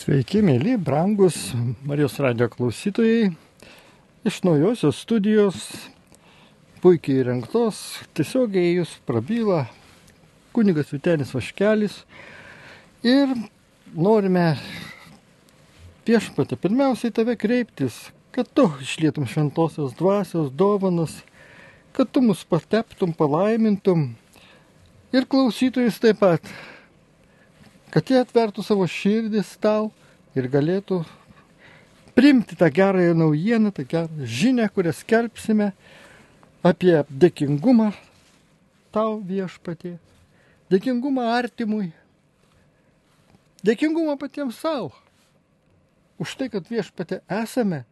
Sveiki, mėly, brangus Marijos radijo klausytojai. Iš naujosios studijos, puikiai įrengtos, tiesiogiai jūs prabyla kunigas Vytenis Vaškelis. Ir norime Viešpatie pirmiausiai tave kreiptis, kad tu išlietum šventosios dvasios dovanas, kad tu mus pateptum, palaimintum ir klausytojus taip pat, kad jie atvertų savo širdis tau ir galėtų priimti tą gerąją naujieną, tą gerą žinią, kurią skelbsime apie dėkingumą tau, Viešpatie, dėkingumą artimui, dėkingumą patiems savo, už tai, kad, Viešpatie, esame,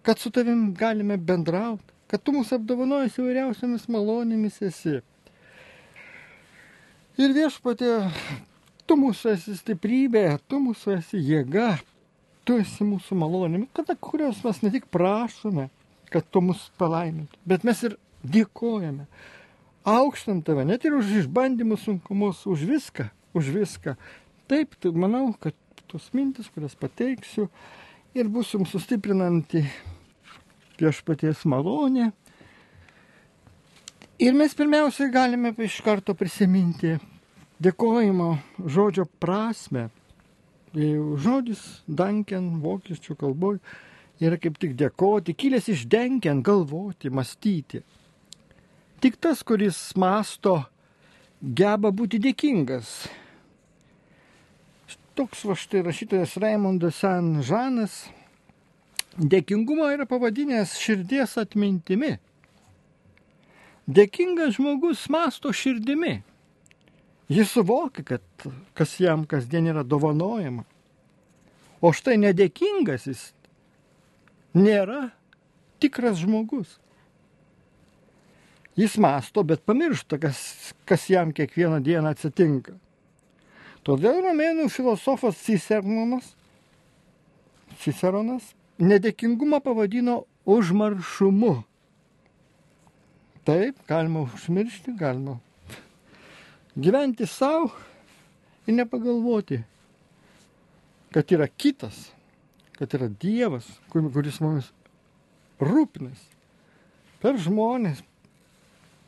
kad su tavim galime bendrauti, kad tu mus apdovanojasi įvairiausiamis malonėmis esi. Ir, Viešpatie, tu mūsų esi stiprybė, tu mūsų esi jėga, tu esi mūsų malonė, kurios mes ne tik prašome, kad tu mus palaimintum, bet mes ir dėkojame. Aukštam tave, net ir už išbandymus, sunkumus, už viską. Taip, manau, kad tos mintis, kurias pateiksiu, ir bus jums sustiprinanti Viešpaties malonė. Ir mes pirmiausiai galime iš karto prisiminti dėkojimo žodžio prasme. Žodis danken vokiečių kalboje yra kaip tik dėkoti, kilęs iš denken, galvoti, mąstyti. Tik tas, kuris mąsto, geba būti dėkingas. Toks va štai rašytojas Raimondas Saint-Žanas dėkingumą yra pavadinęs širdies atmintimi. Dėkingas žmogus mąsto širdimi. Jis suvokia, kad kas jam kasdien yra dovanojama. O štai nedėkingas jis nėra tikras žmogus. Jis mąsto, bet pamiršta, kas jam kiekvieną dieną atsitinka. Todėl romėnų filosofas Ciceronas nedėkingumą pavadino užmaršumu. Taip, galima užmiršti, galima gyventi savo ir nepagalvoti, kad yra kitas, kad yra Dievas, kuris mumis rūpinasi per žmonės,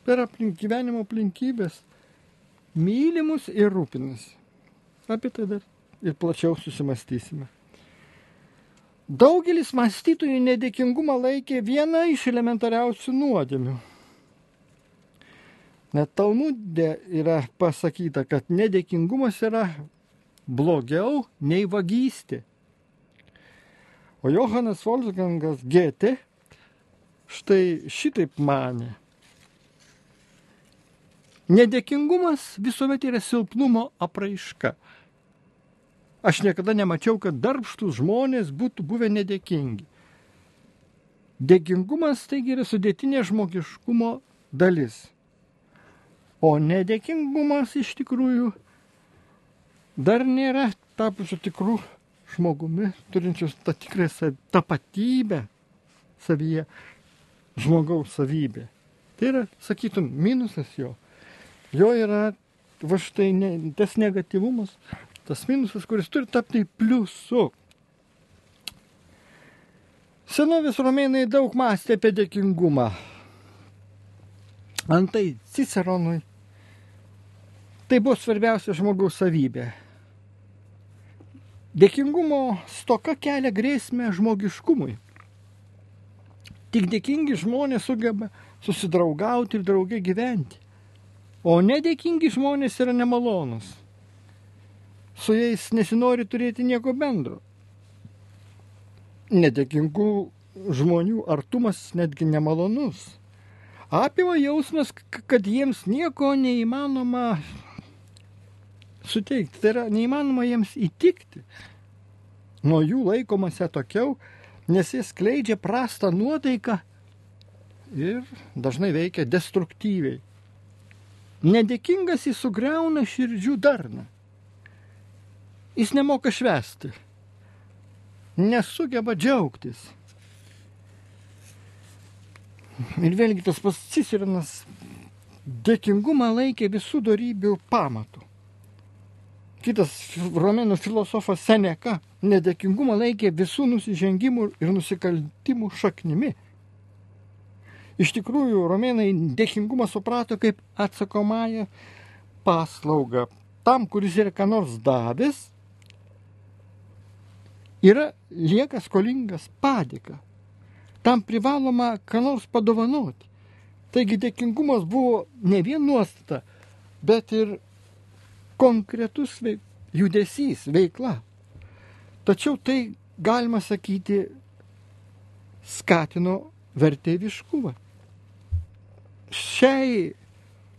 per gyvenimo aplinkybės, mylimus ir rūpinasi. Apie tai dar ir plačiau susimastysime. Daugelis mąstytojų nedėkingumą laikė viena iš elementariausių nuodėmių. Net Talmude yra pasakyta, kad nedėkingumas yra blogiau nei vagystė. O Johanas Wolfgangas Goethe štai šitaip manė. Nedėkingumas visuomet yra silpnumo apraiška. Aš niekada nemačiau, kad darbštūs žmonės būtų buvę nedėkingi. Dėkingumas taigi yra sudėtinė žmogiškumo dalis. O nedėkingumas iš tikrųjų dar nėra tapusių tikrų žmogumi, turinčius tą tikrą tapatybę savyje, žmogaus savybė. Tai yra, sakytum, minusas jo. Jo yra va štai tas negatyvumas, tas minusas, kuris turi tapti pliusu. Senovės romėnai daug mąstė apie dėkingumą. Antai Ciceronui tai buvo svarbiausia žmogaus savybė. Dėkingumo stoka kelia grėsmę žmogiškumui. Tik dėkingi žmonės sugeba susidraugauti ir drauge gyventi. O nedėkingi žmonės yra nemalonus. Su jais nesinori turėti nieko bendro. Nedėkingų žmonių artumas netgi nemalonus. Apima jausmas, kad jiems nieko neįmanoma suteikti. Tai yra neįmanoma jiems įtikti. Nuo jų laikomasi atokiau, nes jie skleidžia prastą nuotaiką ir dažnai veikia destruktyviai. Nedėkingas jis sugriauna širdžių darną. Jis nemoka švęsti. Nesugeba džiaugtis. Ir vėlgi tas pats Ciceronas dėkingumą laikė visų dorybių pamatų. kitas romėnų filosofas Seneka nedėkingumą laikė visų nusižengimų ir nusikaltimų šaknimi. Iš tikrųjų, romėnai dėkingumą suprato kaip atsakomąją paslaugą. Tam, kuris yra ką nors davęs, lieka skolingas padėką. Tam privaloma ką nors padovanoti. Taigi dėkingumas buvo ne vien nuostata, bet ir konkretus judesys, veikla. Tačiau tai, galima sakyti, skatino vertėjiškumą. Šiai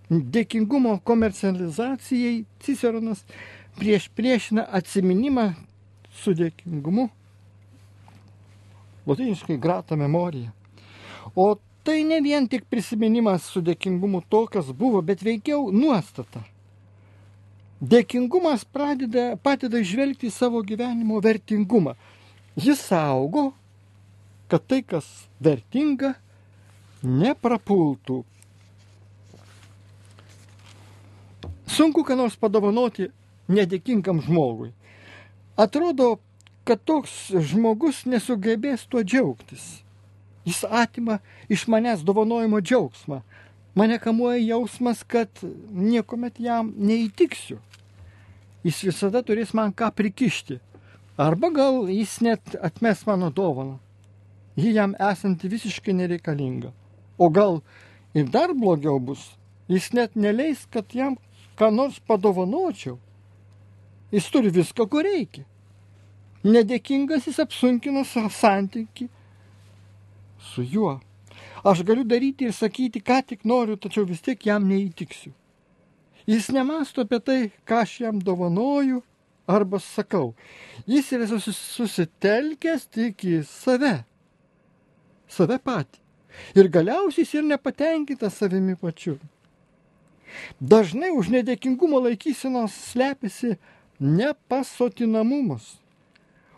dėkingumo komercializacijai Ciceronas priešina atsiminimą su dėkingumu, lotyniškai grata memorija. O tai ne vien tik prisiminimas su dėkingumu to, kas buvo, bet veikiau nuostata. Dėkingumas padeda žvelgti savo gyvenimo vertingumą. Jis saugo, kad tai, kas vertinga, neprapultų. Sunku ką nors padovanoti nedėkingam žmogui. Atrodo, kad toks žmogus nesugebės tuo džiaugtis. Jis atima iš manęs dovanojimo džiaugsmą. Mane kamuoja jausmas, kad niekuomet jam neįtiksiu. Jis visada turės man ką prikišti. Arba gal jis net atmes mano dovaną. Ji jam esanti visiškai nereikalinga. O gal ir dar blogiau bus. Jis net neleis, kad jam ką nors padovanočiau. Jis turi viską, ko reikia. Nedėkingas jis apsunkina santykį su juo. Aš galiu daryti ir sakyti, ką tik noriu, tačiau vis tiek jam neįtiksiu. Jis nemąsto apie tai, ką aš jam dovanoju arba sakau. Jis yra susitelkęs tik į save patį. Ir galiausiai jis ir nepatenkintas savimi pačiu. Dažnai už nedėkingumo laikysenos slepiasi nepasotinamumas.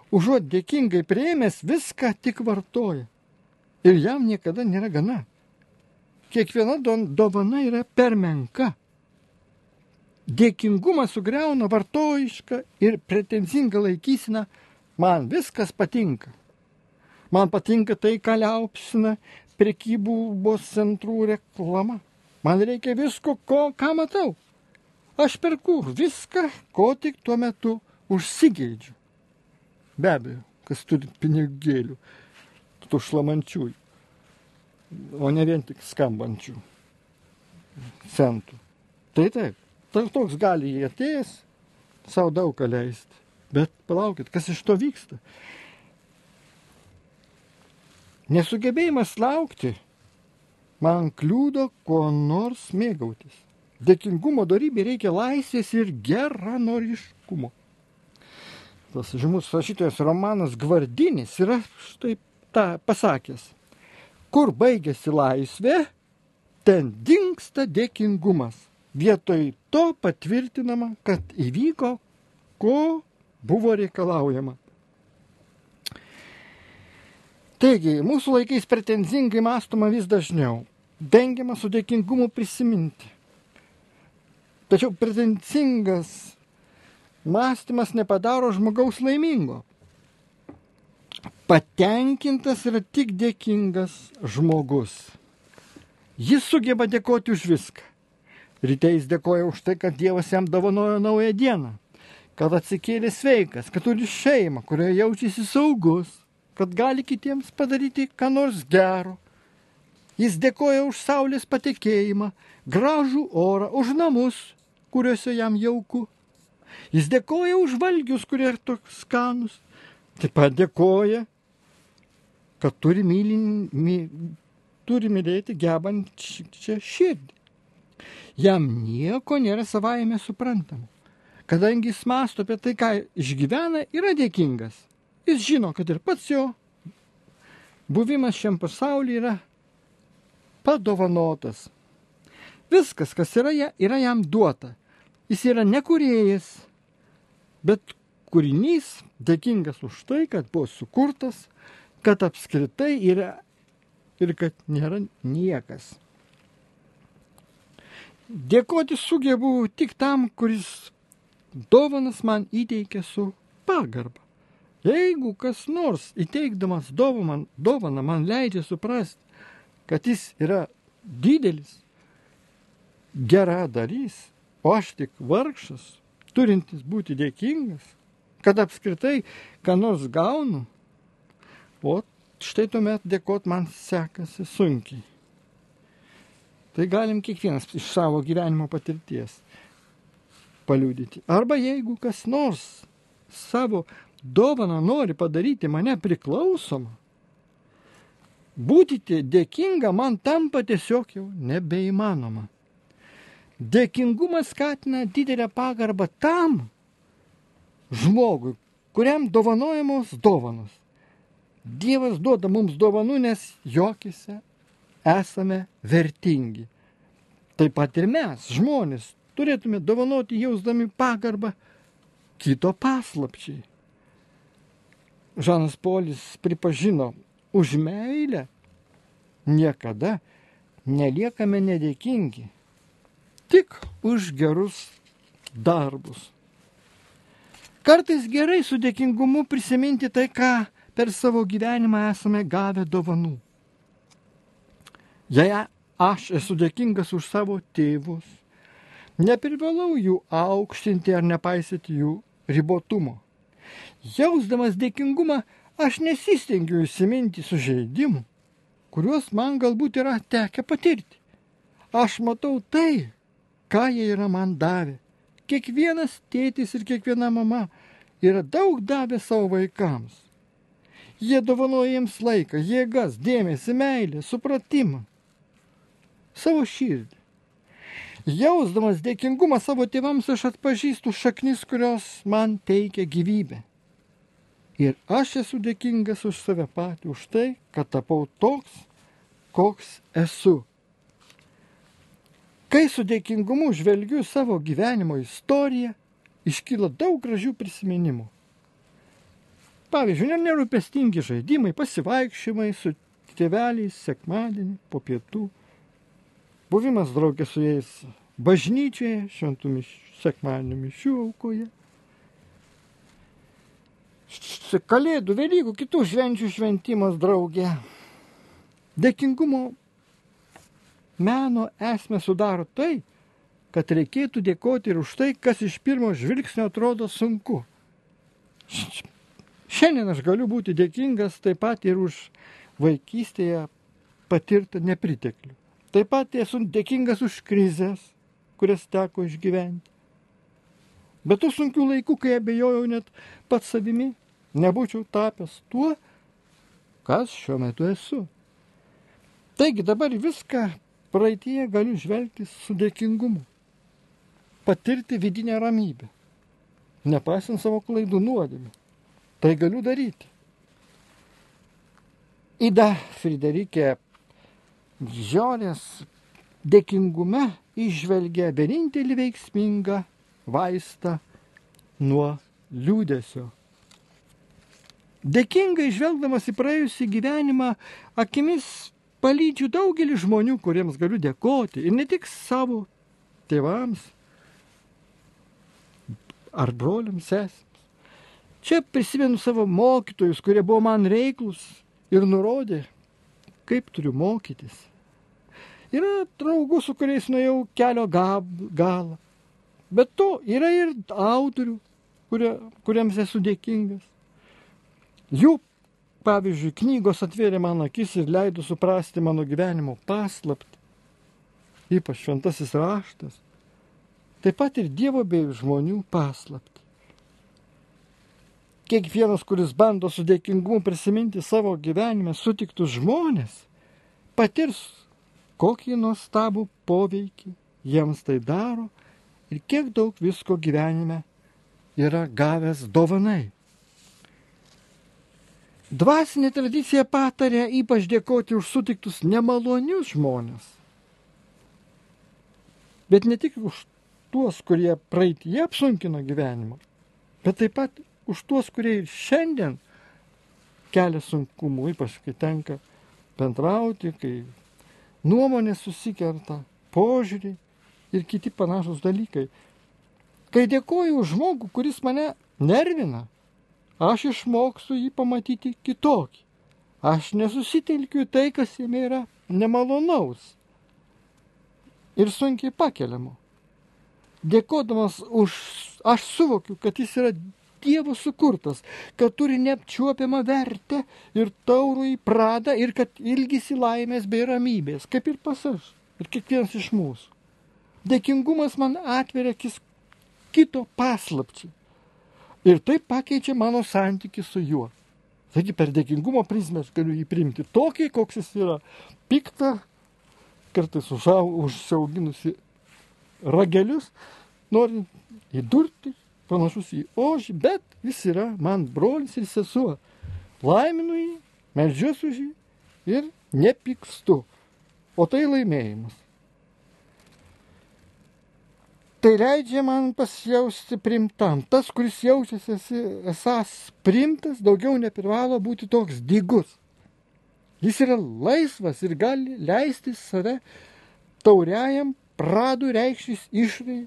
Užuot dėkingai priėmęs, viską tik vartoja. Ir jam niekada nėra gana. Kiekviena dovana yra per menka. Dėkingumas sugriauna vartojišką ir pretenzingą laikyseną. Man viskas patinka. Man patinka tai, ką liaupsina prekybos centrų reklama. Man reikia visko, ką matau. Aš perku viską, ko tik tuo metu užsigeidžiu. Be abejo, kas turi pinigėlių, tų šlamančiųjų, o ne vien tik skambančių centų. Tai taip, toks gali jį atėjęs savo daug ką leisti. Bet palaukit, kas iš to vyksta? Nesugebėjimas laukti man kliūdo kuo nors mėgautis. Dėkingumo dorybė reikia laisvės ir geranoriškumo. Tas žymus rašytojas Romanas Gvardinis yra štai tą pasakęs. Kur baigėsi laisvė, ten dingsta dėkingumas. Vietoj to patvirtinama, kad įvyko, ko buvo reikalaujama. Taigi, mūsų laikais pretenzingai mąstoma vis dažniau. Vengiama su dėkingumu prisiminti. Tačiau pretenzingas mąstymas nepadaro žmogaus laimingo. Patenkintas yra tik dėkingas žmogus. Jis sugeba dėkoti už viską. Ryte jis dėkoja už tai, kad Dievas jam dovanojo naują dieną, kad atsikėlė sveikas, kad turi šeimą, kurioje jaučiasi saugus, kad gali kitiems padaryti ką nors gero. Jis dėkoja už saulės patekėjimą, gražų orą, už namus, kuriuose jam jauku. Jis dėkoja už valgius, kurie yra toks skanus. Taip pat dėkoja, kad turi mylėti gebančią širdį. Jam nieko nėra savaime suprantama. Kadangi jis mąsto apie tai, ką išgyvena, yra dėkingas. Jis žino, kad ir pats jo buvimas šiam pasaulyje yra padovanotas. Viskas, kas yra jam duota. Jis yra ne kūrėjas, bet kūrinys, dėkingas už tai, kad buvo sukurtas, kad apskritai yra ir kad nėra niekas. Dėkoti sugebu tik tam, kuris dovanas man įteikia su pagarba. Jeigu kas nors įteikdamas dovaną man leidžia suprasti, kad jis yra didelis, geradarys, o aš tik vargšas, turintis būti dėkingas, kad apskritai ką nors gaunu, o štai tuomet dėkot man sekasi sunkiai. Tai galim kiekvienas iš savo gyvenimo patirties paliudyti. Arba jeigu kas nors savo dovaną nori padaryti mane priklausomą, būti dėkinga man tampa tiesiog jau nebeįmanoma. Dėkingumas skatina didelę pagarbą tam žmogui, kuriam dovanojamos dovanos. Dievas duoda mums dovanų, nes jokise esame vertingi. Taip pat ir mes, žmonės, turėtume dovanoti jausdami pagarbą kito paslapčiai. Žanas Polis pripažino, už meilę niekada neliekame nedėkingi, tik už gerus darbus. Kartais gerai su dėkingumu prisiminti tai, ką per savo gyvenimą esame gavę dovanų. Jei aš esu dėkingas už savo tėvus, neprivalau jų aukštinti ar nepaisyti jų ribotumo. Jausdamas dėkingumą, aš nesistengiu įsiminti sužeidimų, kuriuos man galbūt yra tekę patirti. Aš matau tai, ką jie yra man davę. Kiekvienas tėtis ir kiekviena mama yra daug davę savo vaikams. Jie dovanoja jiems laiką, jėgas, dėmesį, meilę, supratimą, savo širdį. Jausdamas dėkingumą savo tėvams, aš atpažįstu šaknis, kurios man teikia gyvybę. Ir aš esu dėkingas už save patį, už tai, kad tapau toks, koks esu. Kai su dėkingumu žvelgiu savo gyvenimo istoriją, iškyla daug gražių prisiminimų. Pavyzdžiui, nerūpestingi žaidimai, pasivaikščiojimai su tėveliais sekmadienį po pietų, buvimas draugė su jais bažnyčioje, šventų sekmadienio mišių aukoje, Kalėdų, Velykų, kitų švenčių šventimas draugė. Dėkingumo meno esmę sudaro tai, kad reikėtų dėkoti ir už tai, kas iš pirmo žvilgsnio atrodo sunku. Šiandien aš galiu būti dėkingas taip pat ir už vaikystėje patirtą nepriteklių. Taip pat esu dėkingas už krizės, kurias teko išgyventi. Bet tų sunkių laikų, kai abejojau net pats savimi, nebūčiau tapęs tuo, kas šiuo metu esu. Taigi dabar viską praeityje galiu žvelgti su dėkingumu, patirti vidinę ramybę, nepaisant savo klaidų nuodėmių. Tai galiu daryti. Ida Friderikė Žiorės dėkingume įžvelgia vienintelį veiksmingą vaistą nuo liūdesio. Dėkingai žvelgdamas į praėjusį gyvenimą, akimis palydžiu daugelį žmonių, kuriems galiu dėkoti. Ir ne tik savo tėvams ar broliams, sesėms. Čia prisimenu savo mokytojus, kurie buvo man reiklus ir nurodė, kaip turiu mokytis. Yra draugų, su kuriais nuėjau kelio galą. Bet to yra ir autorių, kuriems esu dėkingas. Jų, pavyzdžiui, knygos atvėrė man akis ir leido suprasti mano gyvenimo paslaptį, ypač šventasis raštas, taip pat ir Dievo bei žmonių paslaptį. Kiekvienas, kuris bando su dėkingumu prisiminti savo gyvenime sutiktus žmonės, patirs, kokį nuostabų poveikį jiems tai daro ir kiek daug visko gyvenime yra gavęs dovanai. Dvasinė tradicija patarė ypač dėkoti už sutiktus nemalonius žmonės. Bet ne tik už tuos, kurie praeityje apsunkino gyvenimą, bet taip pat už tuos, kurie ir šiandien kelia sunkumų, ypač kai tenka bendrauti, kai nuomonės susikerta, požiūriai ir kiti panašus dalykai. Kai dėkoju už žmogų, kuris mane nervina, aš išmoksiu jį pamatyti kitokį. Aš nesusitelkiu į tai, kas jame yra nemalonaus ir sunkiai pakeliamo. Dėkodamas aš suvokiu, kad jis yra Dievo sukurtas, kad turi neapčiuopiamą vertę ir taurų į pradą ir kad ilgisi laimės bei ramybės, kaip ir pas aš ir kiekvienas iš mūsų. Dėkingumas man atveria kito paslapčiai ir tai pakeičia mano santykį su juo. Taigi per dėkingumo prizmę aš galiu jį priimti tokį, koks jis yra, piktą, kartais užsiauginusi ragelius, norint įdurti, panašus į ožį, bet jis yra man brolis ir sesuo. Laiminu jį, meldžiuosi už jį ir nepykstu. O tai laimėjimas. Tai leidžia man pasijausti priimtam. Tas, kuris jaučiasi esąs priimtas, daugiau neprivalo būti toks dygus. Jis yra laisvas ir gali leisti save tauriajam pradų reikštis išrai,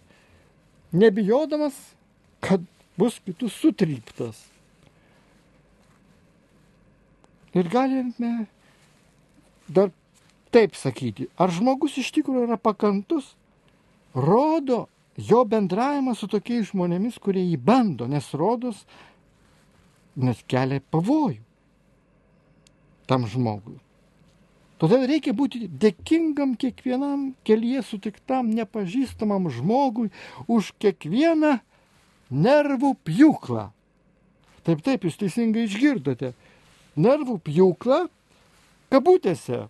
nebijodamas, kad bus kitų sutryptas. Ir galime dar taip sakyti, ar žmogus iš tikrųjų yra pakantus, rodo jo bendravimas su tokiais žmonėmis, kurie jį bando, nes kelia pavojų tam žmogui. Todėl reikia būti dėkingam kiekvienam kelyje sutiktam nepažįstamam žmogui už kiekvieną nervų pjūklą. Taip, jūs teisingai išgirdote. Nervų pjūklą, kabutėse,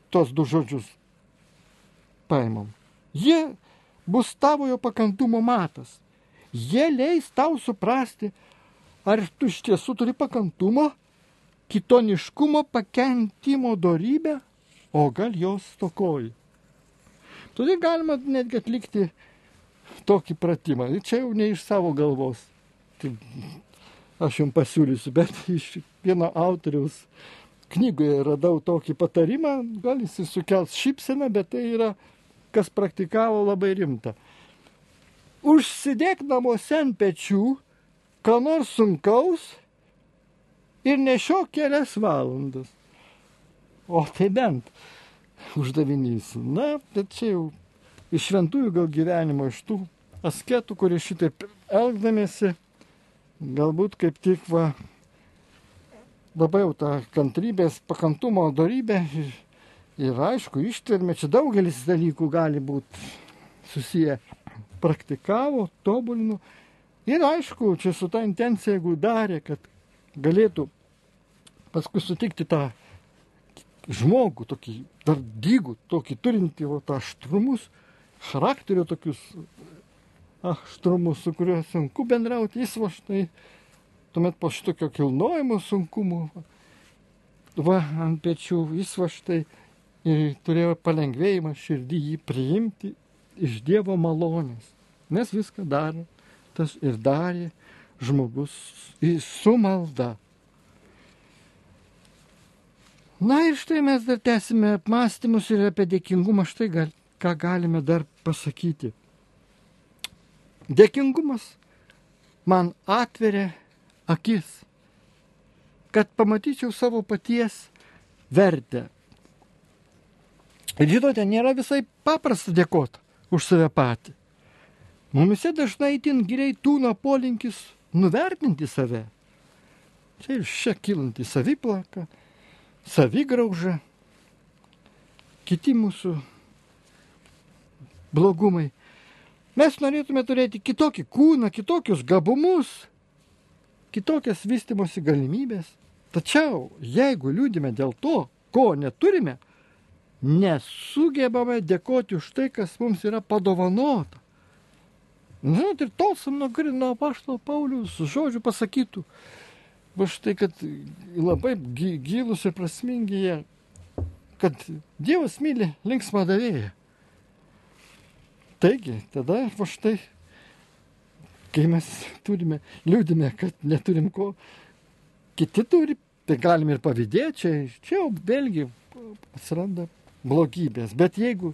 tos du žodžius paimam. Jie bus tavojo pakantumo matas. Jie leis tau suprasti, ar tu iš tiesų turi pakantumo, kitoniškumo, pakentimo dorybę, o gal jos stokoji. Todėl galima netgi atlikti tokį pratimą. Čia jau ne iš savo galvos. Tai aš jums pasiūlysiu, bet iš vieno autoriaus knygoje radau tokį patarimą. Gal jis sukels šypseną, bet tai yra, kas praktikavo, labai rimta. Užsidėk namuose ant pečių, ką nors sunkaus ir nešiok kelias valandas. O tai bent uždavinys. Na, bet čia jau iš šventųjų gal gyvenimo, iš tų asketų, kurie šitaip elgdamiesi, galbūt kaip tik labai jau tą kantrybės, pakantumo dorybę ir aišku, ištvermė, čia daugelis dalykų gali būti susiję, praktikavo, tobulino ir aišku, čia su ta intencija, jeigu darė, kad galėtų paskui sutikti tą žmogų, tokį dar dygų, tokį turintį tą aštrumus, charakterio tokius aštrumus, su kuriuo sunku bendrauti, jis štai, tuomet po šitokio kilnojimo sunkumų, ant pečių, jis štai ir turėjo palengvėjimą širdį jį priimti iš Dievo malonės, nes viską darė, tas ir darė žmogus su malda. Na ir štai mes dar tęsime apmąstymus ir apie dėkingumą, štai ką galime dar pasakyti. Dėkingumas man atveria akis, kad pamatyčiau savo paties vertę. Ir žinote, nėra visai paprasta dėkoti už save patį. Mumise dažnai itin giliai tūno polinkis nuvertinti save. Čia ir šia kilanti saviplaka, savigrauža, kiti mūsų blogumai. Mes norėtume turėti kitokį kūną, kitokius gabumus, kitokias vystymosi galimybės. Tačiau, jeigu liūdime dėl to, ko neturime, nesugebame dėkoti už tai, kas mums yra padovanota. Žinot, ir tolstam nuo apaštalo Pauliaus žodžių pasakytų, va štai, kad labai gilus ir prasmingi jie, kad Dievas myli linksmą davėją. Taigi, tada va štai, kai mes liūdime, kad neturim ko, kiti turi, tai galim ir pavydėti, čia jau vėlgi atsiranda blogybės. Bet jeigu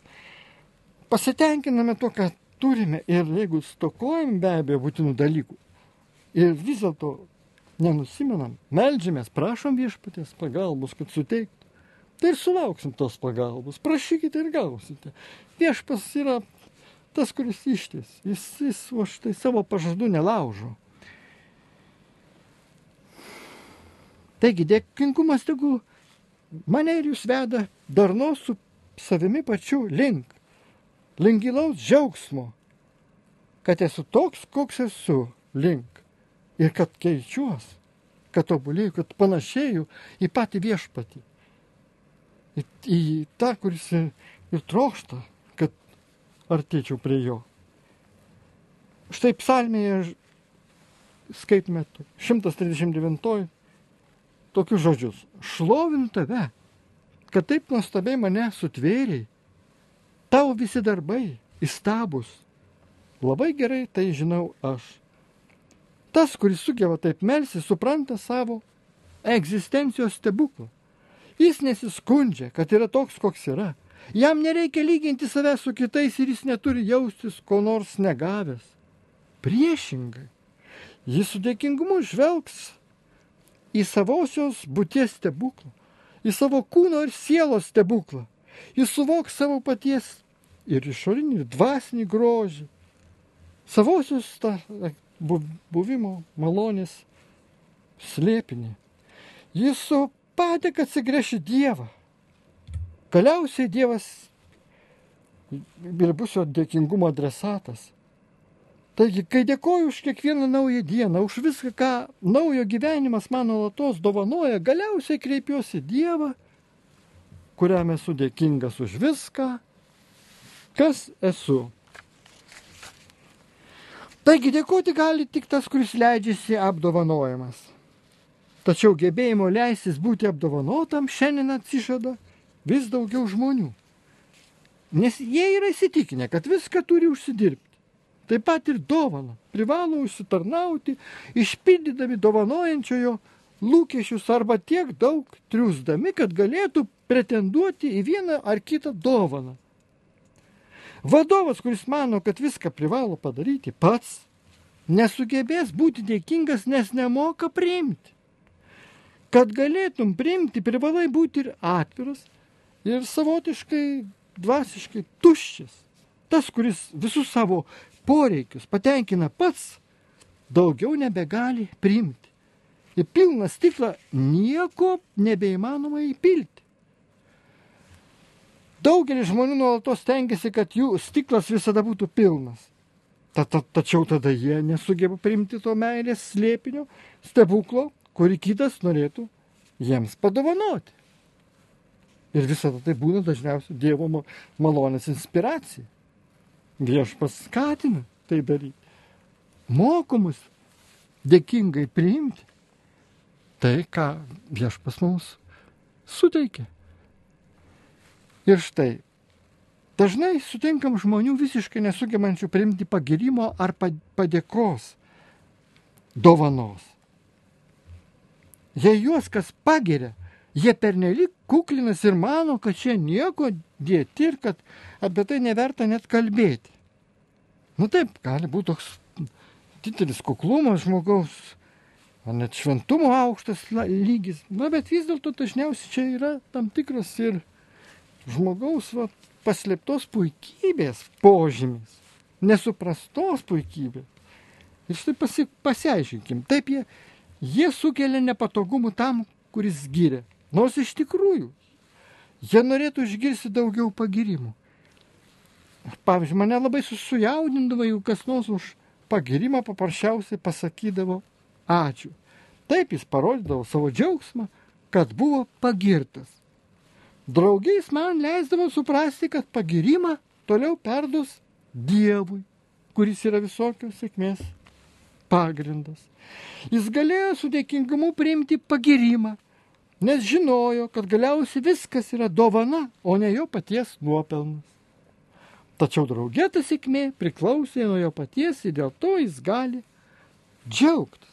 pasitenkiname to, ką turime ir jeigu stokojam be abejo būtinų dalykų ir vis dėlto nenusimenam, meldžiamės, prašom viešpaties pagalbos, kad suteiktų, tai ir sulauksim tos pagalbos. Prašykite ir gausite. Viešpas yra tas, kuris išties. Jis o štai savo pažadų nelaužo. Taigi dėkingumas tegu mane ir jūs veda darnos su savimi pačiu link gilaus džiaugsmo, kad esu toks, koks esu link ir kad keičiuos, kad tobulėju, kad panašėju į patį viešpatį, į tą, kuris ir trokšta, kad artėčiau prie jo. Štai psalmėje skaitome 139 tokius žodžius. Šlovinu tave, kad taip nuostabiai mane sutvėrei. Tavo visi darbai įstabus. Labai gerai tai žinau aš. Tas, kuris sugeba taip melsis, supranta savo egzistencijos stebuklą. Jis nesiskundžia, kad yra toks, koks yra. Jam nereikia lyginti save su kitais ir jis neturi jaustis ko nors negavęs. Priešingai, jis su dėkingumu žvelgs į savosios būties stebuklą, į savo kūno ir sielos stebuklą. Jis suvoks savo paties ir išorinį, ir dvasinį grožį, savosios buvimo malonės slėpinį. Jis su padėka atsigręš į Dievą. Galiausiai Dievas ir bus jo dėkingumo adresatas. Taigi, kai dėkoju už kiekvieną naują dieną, už viską, ką naujo gyvenimas man nuolatos dovanoja, galiausiai kreipiuosi į Dievą, kuriam esu dėkingas už viską, kas esu. Taigi dėkoti gali tik tas, kuris leidžiasi apdovanojamas. Tačiau gebėjimo leistis būti apdovanotam šiandien atsižada vis daugiau žmonių. Nes jie yra įsitikinę, kad viską turi užsidirbti. Taip pat ir dovaną privalo užsitarnauti, išpildydami dovanojančiojo lūkesčius arba tiek daug triūsdami, kad galėtų pretenduoti į vieną ar kitą dovaną. Vadovas, kuris mano, kad viską privalo padaryti pats, nesugebės būti dėkingas, nes nemoka priimti. Kad galėtum priimti, privalai būti ir atviras, ir savotiškai, dvasiškai tuščias. Tas, kuris visus savo poreikius patenkina pats, daugiau nebegali priimti. Į pilną stiklą nieko nebeįmanoma įpilti. Daugelis žmonių nuolatos stengiasi, kad jų stiklas visada būtų pilnas. Tačiau tada jie nesugeba priimti to meilės slėpinio, stebuklo, kurį kitas norėtų jiems padovanoti. Ir visada tai būna dažniausiai Dievo malonės inspiracija. Viešpats skatina tai daryti. Mokomus dėkingai priimti tai, ką Viešpats mums suteikia. Ir štai, dažnai sutinkam žmonių visiškai nesugebančių priimti pagirimo ar padėkos dovanos. Jei juos kas pagiria, jie pernelyg kuklinas ir mano, kad čia nieko dėti ir kad apie tai neverta net kalbėti. Taip, gali būti toks didelis kuklumas žmogaus, ar net šventumo aukštas lygis. Bet vis dėlto dažniausiai čia yra tam tikras ir žmogaus paslėptos puikybės požymis, nesuprastos puikybės. Ir štai pasiaiškinkim. Taip, jie sukelia nepatogumų tam, kuris giria. Nors iš tikrųjų, jie norėtų išgirsti daugiau pagirimų. Pavyzdžiui, mane labai sujaudindavo, jeigu kas nors už pagirimą paprasčiausiai pasakydavo ačiū. Taip jis parodydavo savo džiaugsmą, kad buvo pagirtas. Draugiais man leisdavo suprasti, kad pagirimą toliau perduos Dievui, kuris yra visokios sėkmės pagrindas. Jis galėjo su dėkingumu priimti pagirimą, nes žinojo, kad galiausiai viskas yra dovana, o ne jo paties nuopelnas. Tačiau drauge ta sėkmė priklausė nuo jo paties ir dėl to jis gali džiaugtis.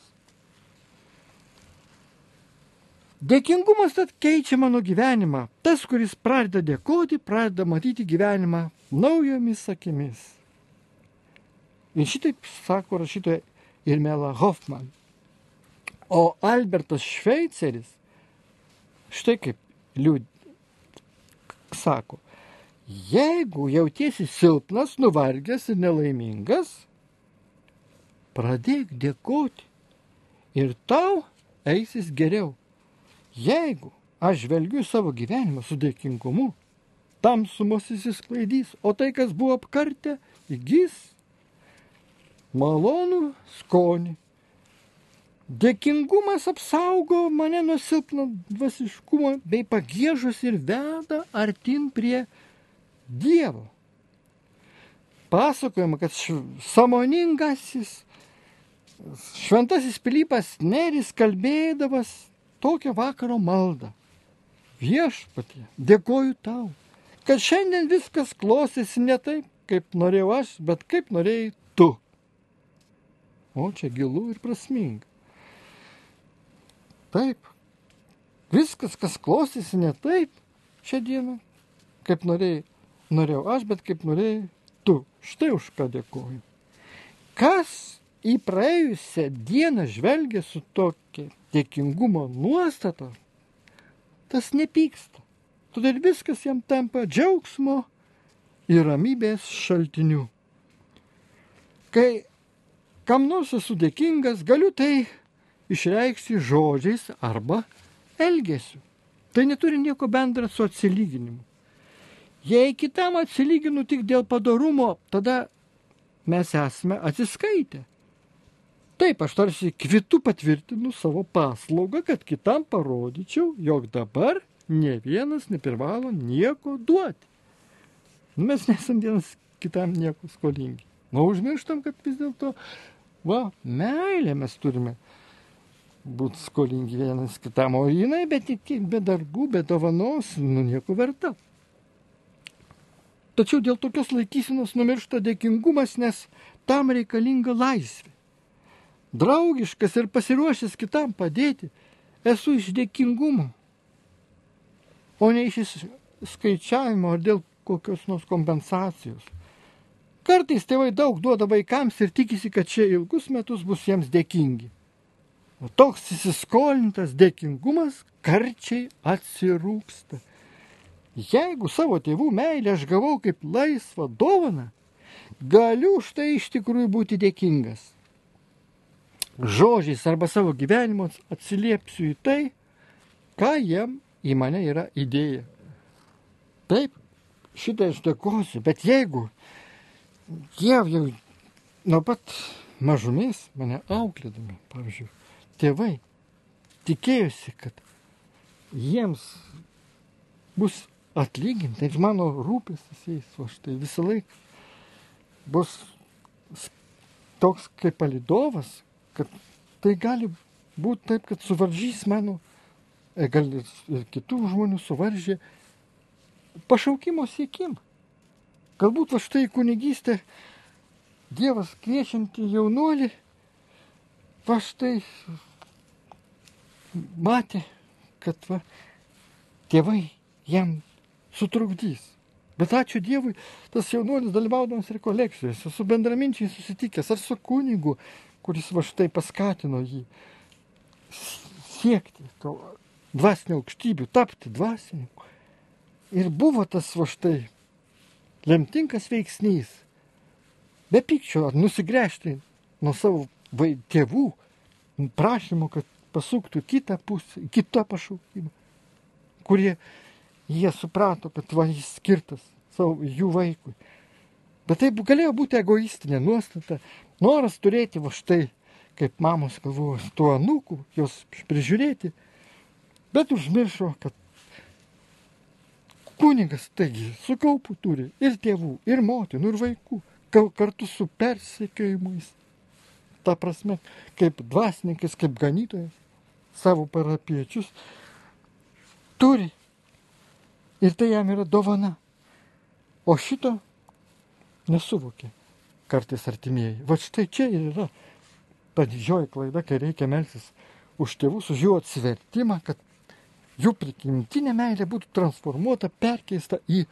Dėkingumas tad keičia mano gyvenimą. Tas, kuris pradeda dėkoti, pradeda matyti gyvenimą naujomis akimis. Ir šitaip sako rašytoja Irmela Hoffman. O Albertas Šveiceris štai kaip sako, jeigu jautiesi silpnas, nuvargęs ir nelaimingas, pradėk dėkoti ir tau eisis geriau. Jeigu aš žvelgiu savo gyvenimą su dėkingumu, tamsumos įsisklaidys, o tai, kas buvo apkartę, įgys malonų skonį. Dėkingumas apsaugo mane nuo silpno dvasiškumo bei pagiežos ir veda artin prie Dievo. Pasakojama, kad sąmoningasis šventasis Pilypas Neris kalbėdavas tokią vakaro maldą. Viešpatie, dėkoju tau, kad šiandien viskas klostėsi ne taip, kaip norėjau aš, bet kaip norėjai tu. O čia gilu ir prasminga. Taip, viskas, kas klostėsi ne taip šią dieną, kaip norėjau aš, bet kaip norėjai tu. Štai už ką dėkoju. Kas į praėjusią dieną žvelgia su tokia dėkingumo nuostata, tas nepyksta. Todėl viskas jam tampa džiaugsmo ir ramybės šaltiniu. Kai kam nors esu dėkingas, galiu tai išreikšti žodžiais arba elgesiu. Tai neturi nieko bendra su atsilyginimu. Jei kitam atsilyginu tik dėl padorumo, tada mes esame atsiskaitę. Taip, aš tarsi kvitu patvirtinu savo paslaugą, kad kitam parodyčiau, jog dabar ne vienas neprivalo nieko duoti. Mes nesam vienas kitam nieko skolingi. O užmirštam, kad vis dėlto, meilė mes turime būti skolingi vienas kitam. O jinai be darbų, be dovanos, nieko verta. Tačiau dėl tokios laikysenos numiršta dėkingumas, nes tam reikalinga laisvė. Draugiškas ir pasiruošęs kitam padėti, esu iš dėkingumo, o ne iš skaičiavimo ar dėl kokios nors kompensacijos. Kartais tėvai daug duoda vaikams ir tikisi, kad šie ilgus metus bus jiems dėkingi. O toks įsiskolintas dėkingumas karčiai atsirūksta. Jeigu savo tėvų meilę aš gavau kaip laisvą dovaną, galiu už tai iš tikrųjų būti dėkingas. Žodžiais arba savo gyvenimu atsiliepsiu į tai, ką jiem į mane yra įdėję. Taip, šitą aš dėkosiu, bet jeigu jie jau nuo pat mažumės mane auklėdami, pavyzdžiui, tėvai tikėjosi, kad jiems bus atlyginta ir mano rūpestis jais, o štai visą laiką bus toks kaip palydovas, kad tai gali būti taip, kad suvaržys mano, gal ir kitų žmonių suvaržė pašaukimo siekimą. Galbūt štai kunigystė Dievas kviečianti jaunuolį, štai matė, kad tėvai jam sutrukdys. Bet ačiū Dievui, tas jaunuolis dalyvaudamas rekolekcijose, su bendraminčiais susitikęs ar su kunigu, kuris štai paskatino jį siekti to dvasinio aukštybių, tapti dvasininku. Ir buvo tas štai lemtingas veiksnys. Be pykčio ar nusigręžti nuo savo tėvų prašymo, kad pasuktų kitą pusę, kitą pašaukimą, kurie jie suprato, kad jis skirtas jų vaikui. Bet tai galėjo būti egoistinė nuostata, noras turėti štai, kaip mamos galvojo, tų anūkų, jos prižiūrėti, bet užmiršo, kad kunigas, taigi, su kaupu turi ir tėvų, ir motinų, ir vaikų, kartu su persekiojimais. Ta prasme, kaip dvasininkas, kaip ganytojas, savo parapiečius turi. Ir tai jam yra dovana. O šito nesuvokė kartais artimieji. Štai čia ir yra ta didžioji klaida, kai reikia melstis už tėvus, už jų atsivertimą, kad jų prigimtinė meilė būtų transformuota, perkeista į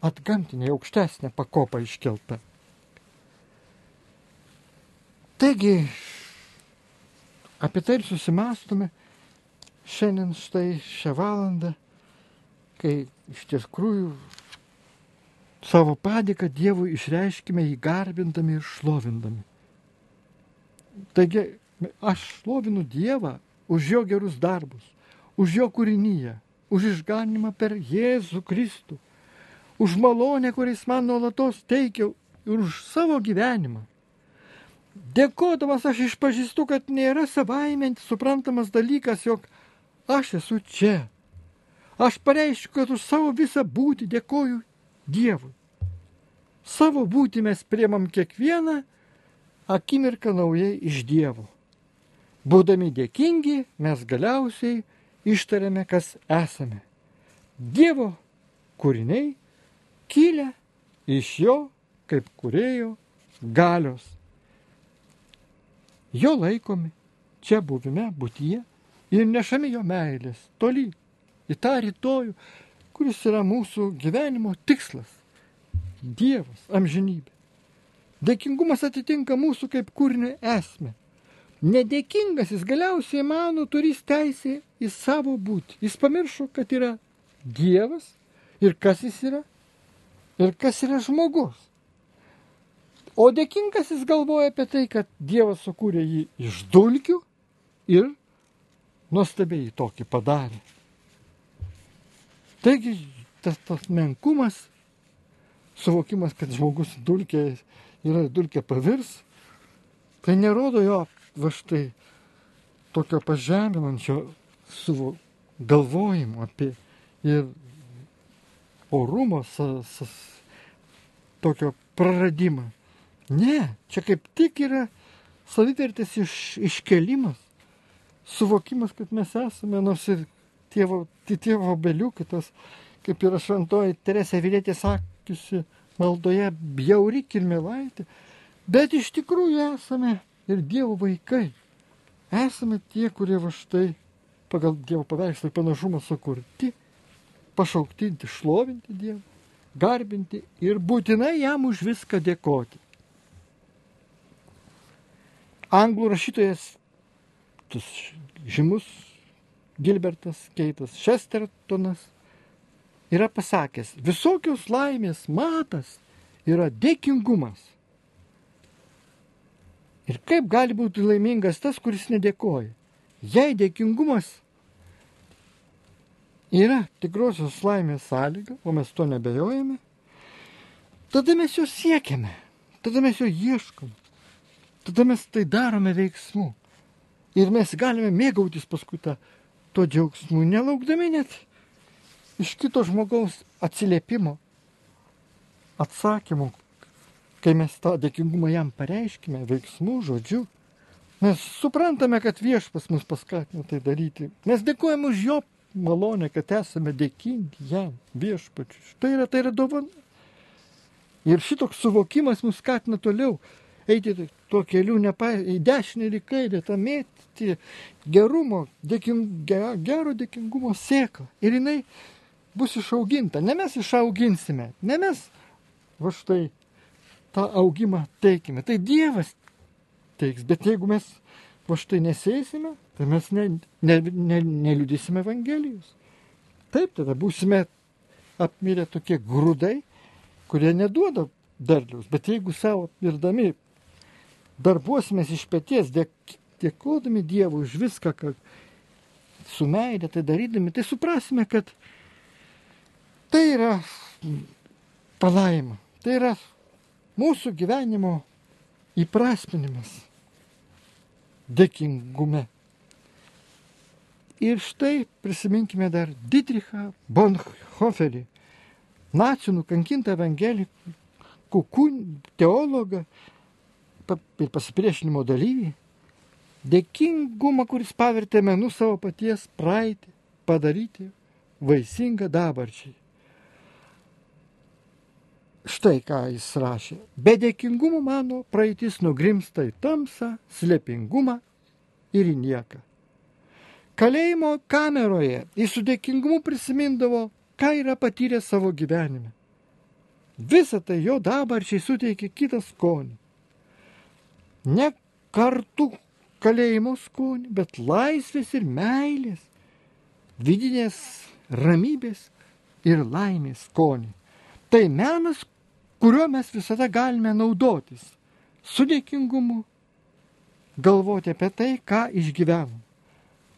atgamtinę, aukštesnę pakopą iškeltą. Taigi, apie tai ir susimastome šiandien štai šią valandą, kai iš tikrųjų savo padėką Dievui išreiškime jį garbindami ir šlovindami. Taigi, aš šlovinu Dievą už jo gerus darbus, už jo kūrinyje, už išganimą per Jėzų Kristų, už malonę, kuris man nuolatos teikia ir už savo gyvenimą. Dėkodamas aš išpažįstu, kad nėra savaime suprantamas dalykas, jog aš esu čia. Aš pareiškiu, kad už savo visą būtį dėkoju Dievui. Savo būtį mes priemam kiekvieną akimirką naujai iš Dievo. Būdami dėkingi, mes galiausiai ištariame, kas esame. Dievo kūriniai kilę iš jo kaip kūrėjo galios. Jo laikomi čia buvime, būtyje ir nešami jo meilės toli į tą rytojų, kuris yra mūsų gyvenimo tikslas. Dievas, amžinybė. Dėkingumas atitinka mūsų kaip kūrinio esmę. Nedėkingas jis galiausiai mano turės teisę į savo būtį. Jis pamiršo, kad yra Dievas ir kas jis yra ir kas yra žmogus. O dėkingas jis galvoja apie tai, kad Dievas sukūrė jį iš dulkių ir nuostabiai tokį padarė. Taigi tas menkumas, suvokimas, kad žmogus dulkė yra dulkė pavirs, tai nerodo jo va štai tokio pažeminančio galvojimo apie ir orumo tokio praradimą. Ne, čia kaip tik yra savivertės iškelimas, suvokimas, kad mes esame, nors ir tėvo obeliukas, kaip yra šventoji Teresė Avilietė sakiusi maldoje, bjauri kirmėlaitė, bet iš tikrųjų esame ir Dievo vaikai. Esame tie, kurie va štai pagal Dievo paveikslą ir panašumą sukurti, pašaukti šlovinti Dievą, garbinti ir būtinai jam už viską dėkoti. Anglų rašytojas, žymus Gilbertas Keitas Chestertonas yra pasakęs, visokios laimės matas yra dėkingumas. Ir kaip gali būti laimingas tas, kuris nedėkoja? Jei dėkingumas yra tikrosios laimės sąlyga, o mes to nebejojame, tada mes jo siekiame, tada mes jo ieškome. Tada mes tai darome veiksmu. Ir mes galime mėgautis paskui to džiaugsmu, nelaukdami net iš kito žmogaus atsiliepimo, atsakymų, kai mes tą dėkingumą jam pareiškime, veiksmu, žodžiu. Mes suprantame, kad viešpas mus paskatino tai daryti. Mes dėkojame už jo malonę, kad esame dėkingi jam, viešpačiui. Tai yra dovana. Ir šitoks suvokimas mus skatina toliau eiti tuo keliu į dešinę ir į kairę, tą mėtyti gerumo, gero dėkingumo sėklą. Ir jinai bus išauginta. Ne mes išauginsime, ne mes va štai tą augimą teikime. Tai Dievas teiks, bet jeigu mes va štai nesėsime, tai mes neliudysime Evangelijos. Taip, tada būsime apmirę tokie grūdai, kurie neduoda derliaus. Bet jeigu savo mirdami darbuosimės iš peties, dėkodami Dievui už viską, kad su meile tai darydami, tai suprasime, kad tai yra palaima, tai yra mūsų gyvenimo įprasminimas dėkingume. Ir štai prisiminkime dar Dietrichą Bonhoefferį, nacių nukankintą evangelikų teologą ir pasipriešinimo dalyvį, dėkingumą, kuris pavertė menu savo paties praeitį, padaryti vaisingą dabarčiai. Štai ką jis rašė. Be dėkingumo mano praeitis nugrimsta į tamsą, slėpingumą ir į nieką. Kalėjimo kameroje jis su dėkingumu prisimindavo, ką yra patyręs savo gyvenime. Visą tai jo dabarčiai suteikė kitą skonį. Ne kartu kalėjimo skonį, bet laisvės ir meilės, vidinės ramybės ir laimės skonį. Tai menas, kuriuo mes visada galime naudotis, su dėkingumu, galvoti apie tai, ką išgyvenom.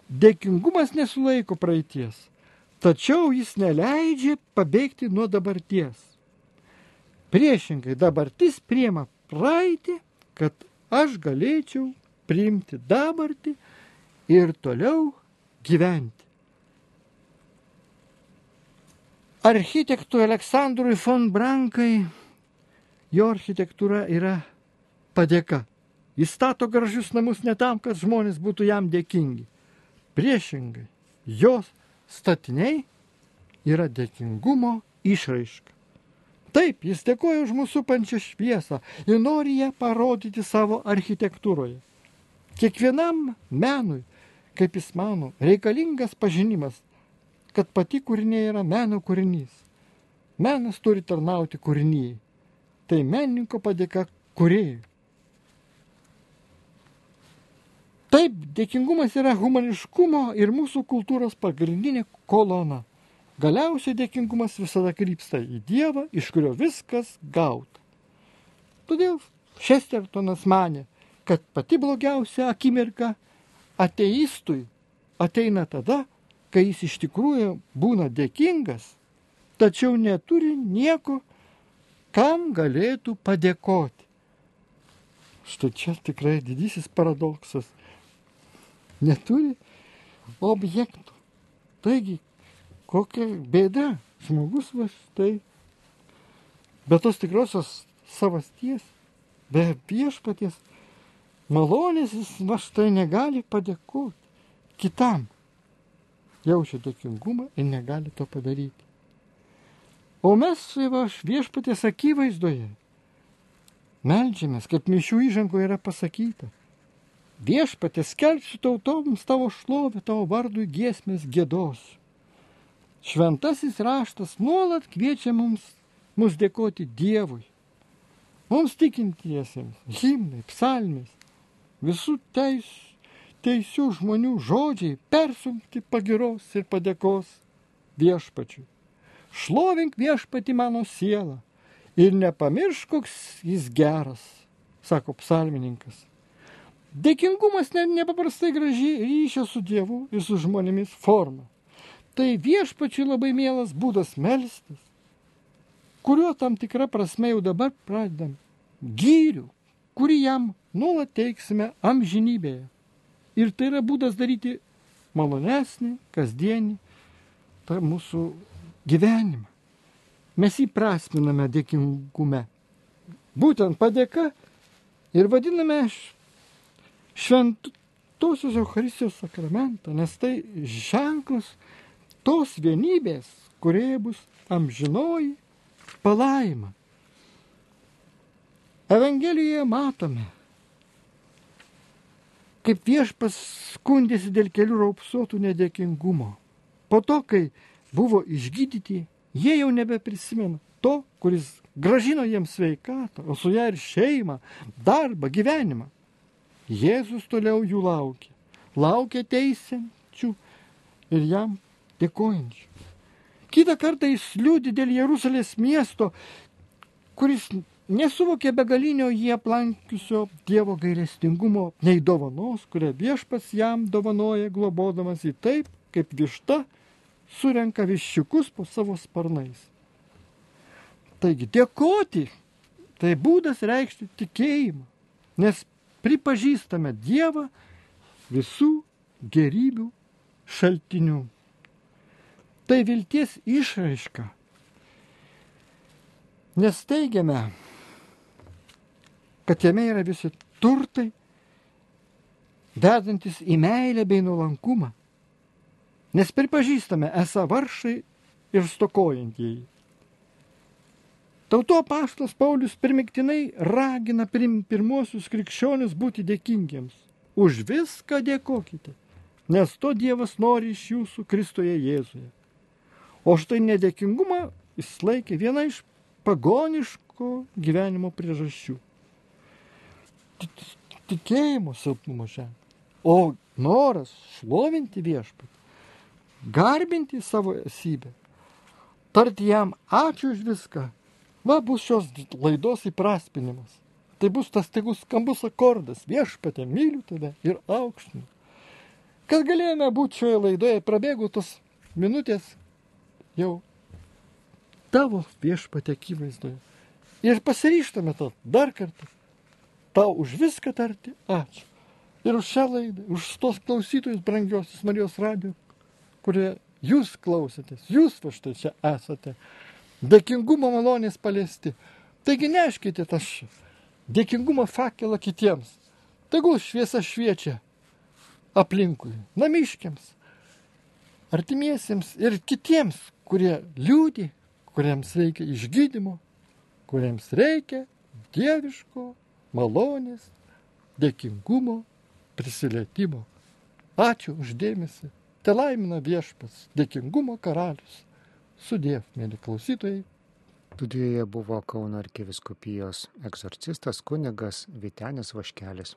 Dėkingumas nesulaiko praeities, tačiau jis neleidžia pabėgti nuo dabarties. Priešingai, dabartis priima praeitį, kad aš galėčiau priimti dabartį ir toliau gyventi. Architektui Aleksandrui von Brankai jo architektūra yra padėka. Jis stato gražius namus ne tam, kad žmonės būtų jam dėkingi. Priešingai, jos statiniai yra dėkingumo išraiška. Taip, jis dėkoja už mūsų supančią šviesą ir nori ją parodyti savo architektūroje. Kiekvienam menui, kaip jis mano, reikalingas pažinimas, kad pati kūrinė yra meno kūrinys. Menas turi tarnauti kūrinyjei. Tai menininko padėka kūrėjui. Taip, dėkingumas yra humaniškumo ir mūsų kultūros pagrindinė kolona. Galiausiai dėkingumas visada krypsta į Dievą, iš kurio viskas gauta. Todėl Šestertonas manė, kad pati blogiausia akimirka ateistui ateina tada, kai jis iš tikrųjų būna dėkingas, tačiau neturi nieko, kam galėtų padėkoti. Štai čia tikrai didysis paradoksas. Neturi objektų. Taigi, kokia bėda. Žmogus va štai. Be tos tikrosios savasties, be viešpaties malonės jis va štai negali padėkoti kitam. Jaučia dėkingumą ir negali to padaryti. O mes va viešpaties akivaizdoje meldžiamės, kaip mišių įžangoje yra pasakyta. Viešpatie, skelbsiu tautoms tavo šlovę, tavo vardui giesmės giedosiu. Šventasis raštas nuolat kviečia mus dėkoti Dievui. Mums tikintiesiems, himnai, psalmės, visų teisių žmonių žodžiai persunkti pagiros ir padėkos viešpačiui. Šlovink viešpatį mano sielą ir nepamiršk, koks jis geras, sako psalmininkas. Dėkingumas nepaprastai graži ryšio su Dievu ir su žmonėmis forma. Tai viešpačiui labai mielas būdas melstis, kuriuo tam tikra prasme jau dabar pradedam gyrių, kurį jam nuolat teiksime amžinybėje. Ir tai yra būdas daryti malonesnį, kasdienį tą mūsų gyvenimą. Mes jį prasminame dėkingume. Būtent padėka ir vadiname šventosios Eucharistijos sakramentą, nes tai ženklas tos vienybės, kurioje bus amžinoji palaima. Evangelijoje matome, kaip viešpas skundėsi dėl kelių raupsuotų nedėkingumo. Po to, kai buvo išgydyti, jie jau nebeprisimena to, kuris grąžino jiems sveikatą, o su ją ir šeimą, darbą, gyvenimą. Jėzus toliau jų laukia. Laukia teisiančių ir jam dėkojančių. Kitą kartą jis liūdi dėl Jeruzalės miesto, kuris nesuvokė begalinio jį aplankiusio Dievo gailestingumo, nei dovanos, kurią viešpats jam dovanoja, globodamas į taip, kaip višta surenka viščiukus po savo sparnais. Taigi dėkoti tai būdas reikšti tikėjimą, nes pripažįstame Dievą visų gerybių šaltinių. Tai vilties išraiška, nes teigiame, kad jame yra visi turtai, vedantis į meilę bei nuolankumą, nes pripažįstame esą vargšai ir stokojantieji. Tautų apaštalas Paulius primygtinai ragina pirmuosius krikščionius būti dėkingiems. Už viską dėkokite, nes to Dievas nori iš jūsų Kristuje Jėzuje. O štai nedėkingumą jis laikė viena iš pagoniško gyvenimo priežasčių. tikėjimo silpnumo ženklas. O noras šlovinti viešpatį, garbinti savo esybę, tarti jam ačiū už viską, va bus šios laidos įprasminimas. Tai bus tas staigus skambus akordas, viešpatie, myliu tave ir aukštinu. Kad galėjome būti šioje laidoje, prabėgo tos minutės jau tavo viešpatie akivaizdoje. Ir pasiryžtame to dar kartą, tau už viską tarti ačiū. Ir už šią laidą, už tos klausytojus brangiosius Marijos radijo, kurie jūs klausėtės, jūs va štai čia esate. Dėkingumo malonės paliesti. Taigi neškite tą dėkingumo fakelą kitiems. Tegul šviesa šviečia aplinkui, namiškiams, artimiesiems ir kitiems, kurie liūdi, kuriems reikia išgydymo, kuriems reikia dieviško malonės, dėkingumo, prisilietimo. Ačiū už dėmesį. Te laimina viešpats, dėkingumo karalius. Sudiev, mėly klausytojai. Studijoje buvo Kauno arkivyskupijos egzorcistas kunigas Vytenis Vaškelis.